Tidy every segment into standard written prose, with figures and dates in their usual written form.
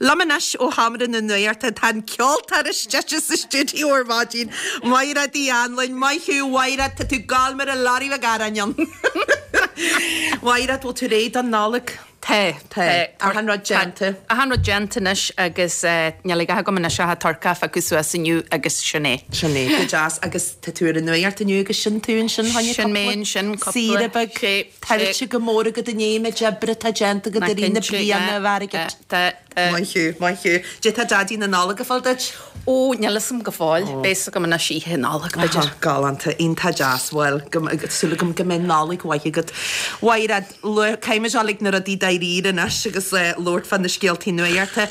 Liom anois ó sheomra na nuachta tá an ceoltóir is deise sa stiúideo ar maidin, Maighread Uí Anluain. Maith thú, Mhaighread, tá tú ag gabháil mar a lorry le garráin ann. Mhaighread, bhfuil tú réidh don Nollaig? Tá, tá. Achan rud déanta. Achan rud déanta anois agus níl a dhath agam anois ach an turcaí a phiocadh suas inniu agus sin é. Sin é, go deas. Agus tá tú ar an nuacht inniu agus sin tú ansin, choinne cúpla. Sin mé ansin, cúpla. Saoire beag. Sé, sé. Tuillte go mór agat i ndiaidh an méid oibre atá déanta agat i rith na bliana, a Mhaighread. Tá, tá. Maith thú, maith thú. Cad é tá Daidí na Nollag ag fáil duit? Ó, níl fhios a'm go fóill. Beidh fhios agam anois oíche Nollag, b'fhéidir. Galánta, iontach deas. Bhuel, súil agam go mbeidh Nollaig mhaith agat. Mhaighread, caithfimid dul ag na rudaí dáiríre anois agus labhairt fá na scéaltaí nuachta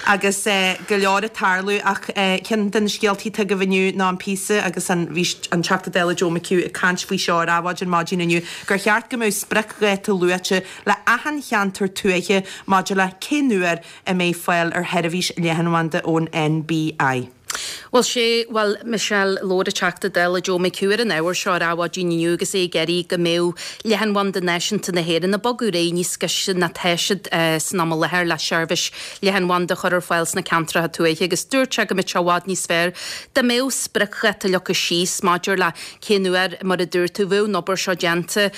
agus go leor ag tarlú ach ceann de na scéaltaí atá agaibh inniu ná an píosa agus an bhí an Teachta Dála Joe McHugh ag caint faoi seo ar Adhmhaidin maidin inniu gur cheart go mbeadh spriocdháta luaite le achan cheantar tuaithe maidir le cén uair a mbeidh fáil ar sheirbhís leathanbhanda ón NBI. Bhuel, sé, bhuel, Michelle, labhair an Teachta Dála Joe McHugh ar an ábhar seo ar Adhmhaidin inniu agus é ag iarraidh go mbeadh leathanbhanda náisiúnta na hÉireann ag bogadh ar aghaidh níos gaiste ná tá siad san am i láthair le seirbhís leathanbhanda a chur ar fáil sna ceantracha tuaithe agus dúirt sé go mbeadh sé i bhfad níos fearr dá mbeadh spriocdháta leagtha síos maidir le Cén uair, mar a dúirt tú, bheadh an obair seo déanta,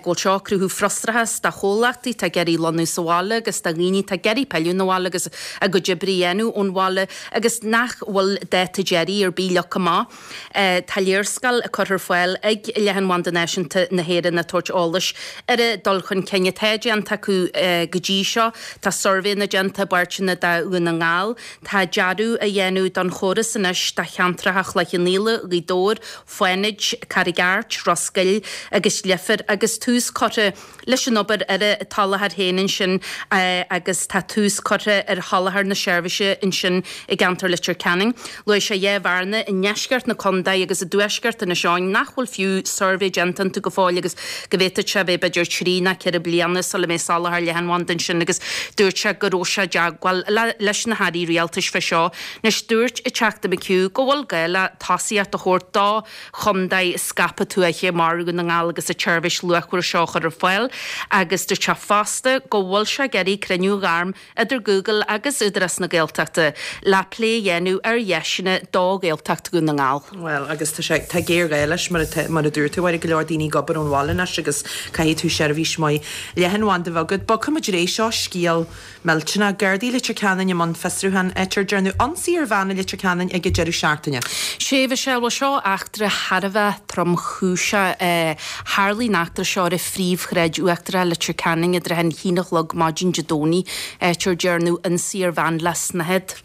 go bhfuil seo ag cruthú frustrachas do chomhlachtaí atá ag iarraidh lonnú sa bhaile agus do dhaoine atá ag iarraidh pilleadh 'na bhaile agus a gcuid oibre a dhéanamh ón bhaile agus nach bhfuil dáta deiridh ar bith leagtha amach. Tá léarscáil curtha ar fáil ag Leathanbhanda Náisiúnta na hÉireann ag tabhairt eolais ar an dul chun cinn atá déanta acu go dtí seo. Tá suirbhéanna déanta i bpáirteanna de Dhún na nGall. Tá dearadh á dhéanamh don chóras anois do cheantracha Chloich Cheann Fhaola, Ghaoth Dobhair, Fánaid, Carraig Airt, Ros Goill agus Leifear agus tús curtha leis an obair ar an tsoláthar féin ansin agus tá tús curtha ar sholáthar na seirbhíse ansin i gceantar Leitir Ceanainn. Luaigh sé dhá bhearna i ndeisceart na contae agus i dtuaisceart Inis Eoghain nach bhfuil fiú suirbhé déanta iontu go fóill agus go bhféadfadh sé a bheith b'fhéidir trí ná ceithre bliana sula mbeidh soláthar leathanbhanda ansin agus dúirt sé go raibh sé i dteagmháil leis na hairí rialtais fé seo. Anois dúirt an Teachta McHugh go bhfuil gá le tosaíocht a thabhairt do chontae scaipthe tuaithe mar Dhún na nGall agus an tseirbhís luachmhar seo a chur ar fáil agus dúirt sé fosta go bhfuil sé ag iarraidh cruinniú a ghairm idir Google agus Údarás na Gaeltachta le plé a dhéanamh ar dheiseanna do Ghaeltacht Dhún na nGall. Bhuel, agus tá sé, tá géarghá leis, mar atá, mar a dúirt tú, a Mháire, go leor daoine ag obair ón bhaile anois agus caithfidh tú seirbhís mhaith leathanbhanda a bheith agat. Bogfaimid ar aghaidh, seo scéal millteanach. Gardaí Leitir Ceanainn i mbun fiosrúchán áit ar dearnadh ionsaí ar bhean i Leitir Ceanainn ag an deireadh seachtaine. Sea, Michelle, bhuel seo eachtra thar a bheith tromchúiseach. Tharlaigh an eachtra seo ar an phríomhshráid uachtarach i Leitir Ceanainn i dtrátha an haon a chlog maidin Dé Domhnaigh, áit ar dearnadh ionsaí ar bhean le snáthaid.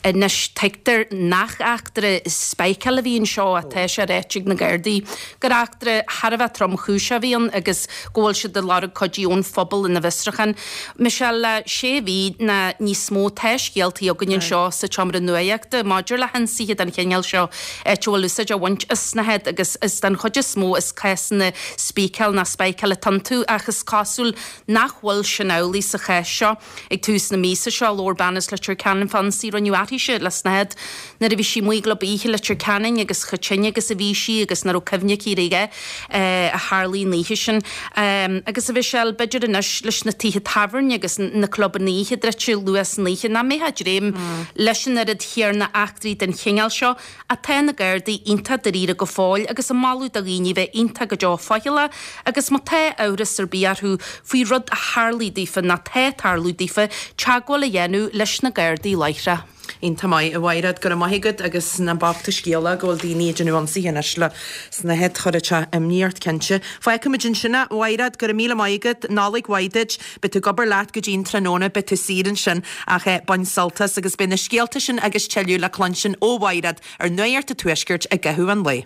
Anois, tuigtear nach eachtra speiceála a bhí anseo ach tá sé ráite ag na Gardaí gur eachtra thar a bheith tromchúiseach a bhí ann agus go bhfuil siad ag lorg cuidiú ón phobal ina bhfiosrúchán. Michelle, le sé mhí ná níos mó tá scéaltaí againn anseo sa tseomra nuachta maidir le hionsaithe den chineál seo áit a bhfuil úsáid á bhaint as snáthaid agus is den chuid is mó is cásanna spíceáil ná speiceáil atá iontu ach is cosúil nach bhfuil sin amhlaidh sa chás seo. Ag tús na míosa seo labhair bean as Leitir Ceanainn fán ionsaí a rinneadh uirthise le snáthaid nuair a bhí sí amuigh i gclub oíche i Leitir Ceanainn agus chomh tinn agus a bhí sí agus nach raibh cuimhne aici ar a dhath a tharlaigh an oíche sin. Agus a Mhichelle, b'fhéidir anois leis na tithe tábhairne agus na clubanna oíche druidte luath san oíche nach mbeifeá ag dréim leis an oiread chéarna eachtraí den chineál seo ach tá na Gardaí iontach dáiríre go fóill agus ag moladh do dhaoine bheith iontach go deo faichilleach agus má tá amhras ar bith orthu faoi rud a tharlaigh daofa nó tá ag tarlú daofa, teagmháil a dhéanamh leis na Gardaí láithreach. Iontach maith, a Mhaighread, go raibh maith agat agus nach bocht an scéal é go bhfuil daoine ag déanamh ionsaithe anois le snáthaid, chuirfeadh sé imní ort cinnte. Fágfaimid ansin é, a Mhaighread, go raibh míle maith agat, Nollaig mhaith duit. Beidh tú ag obair leat go dtí an tráthnóna, beidh tú saor ansin ach bain sult as agus beidh na scéalta sin agus tuilleadh le cluinstin ó Mhaighread ar Nuacht an Tuaiscirt i gcaitheamh an lae.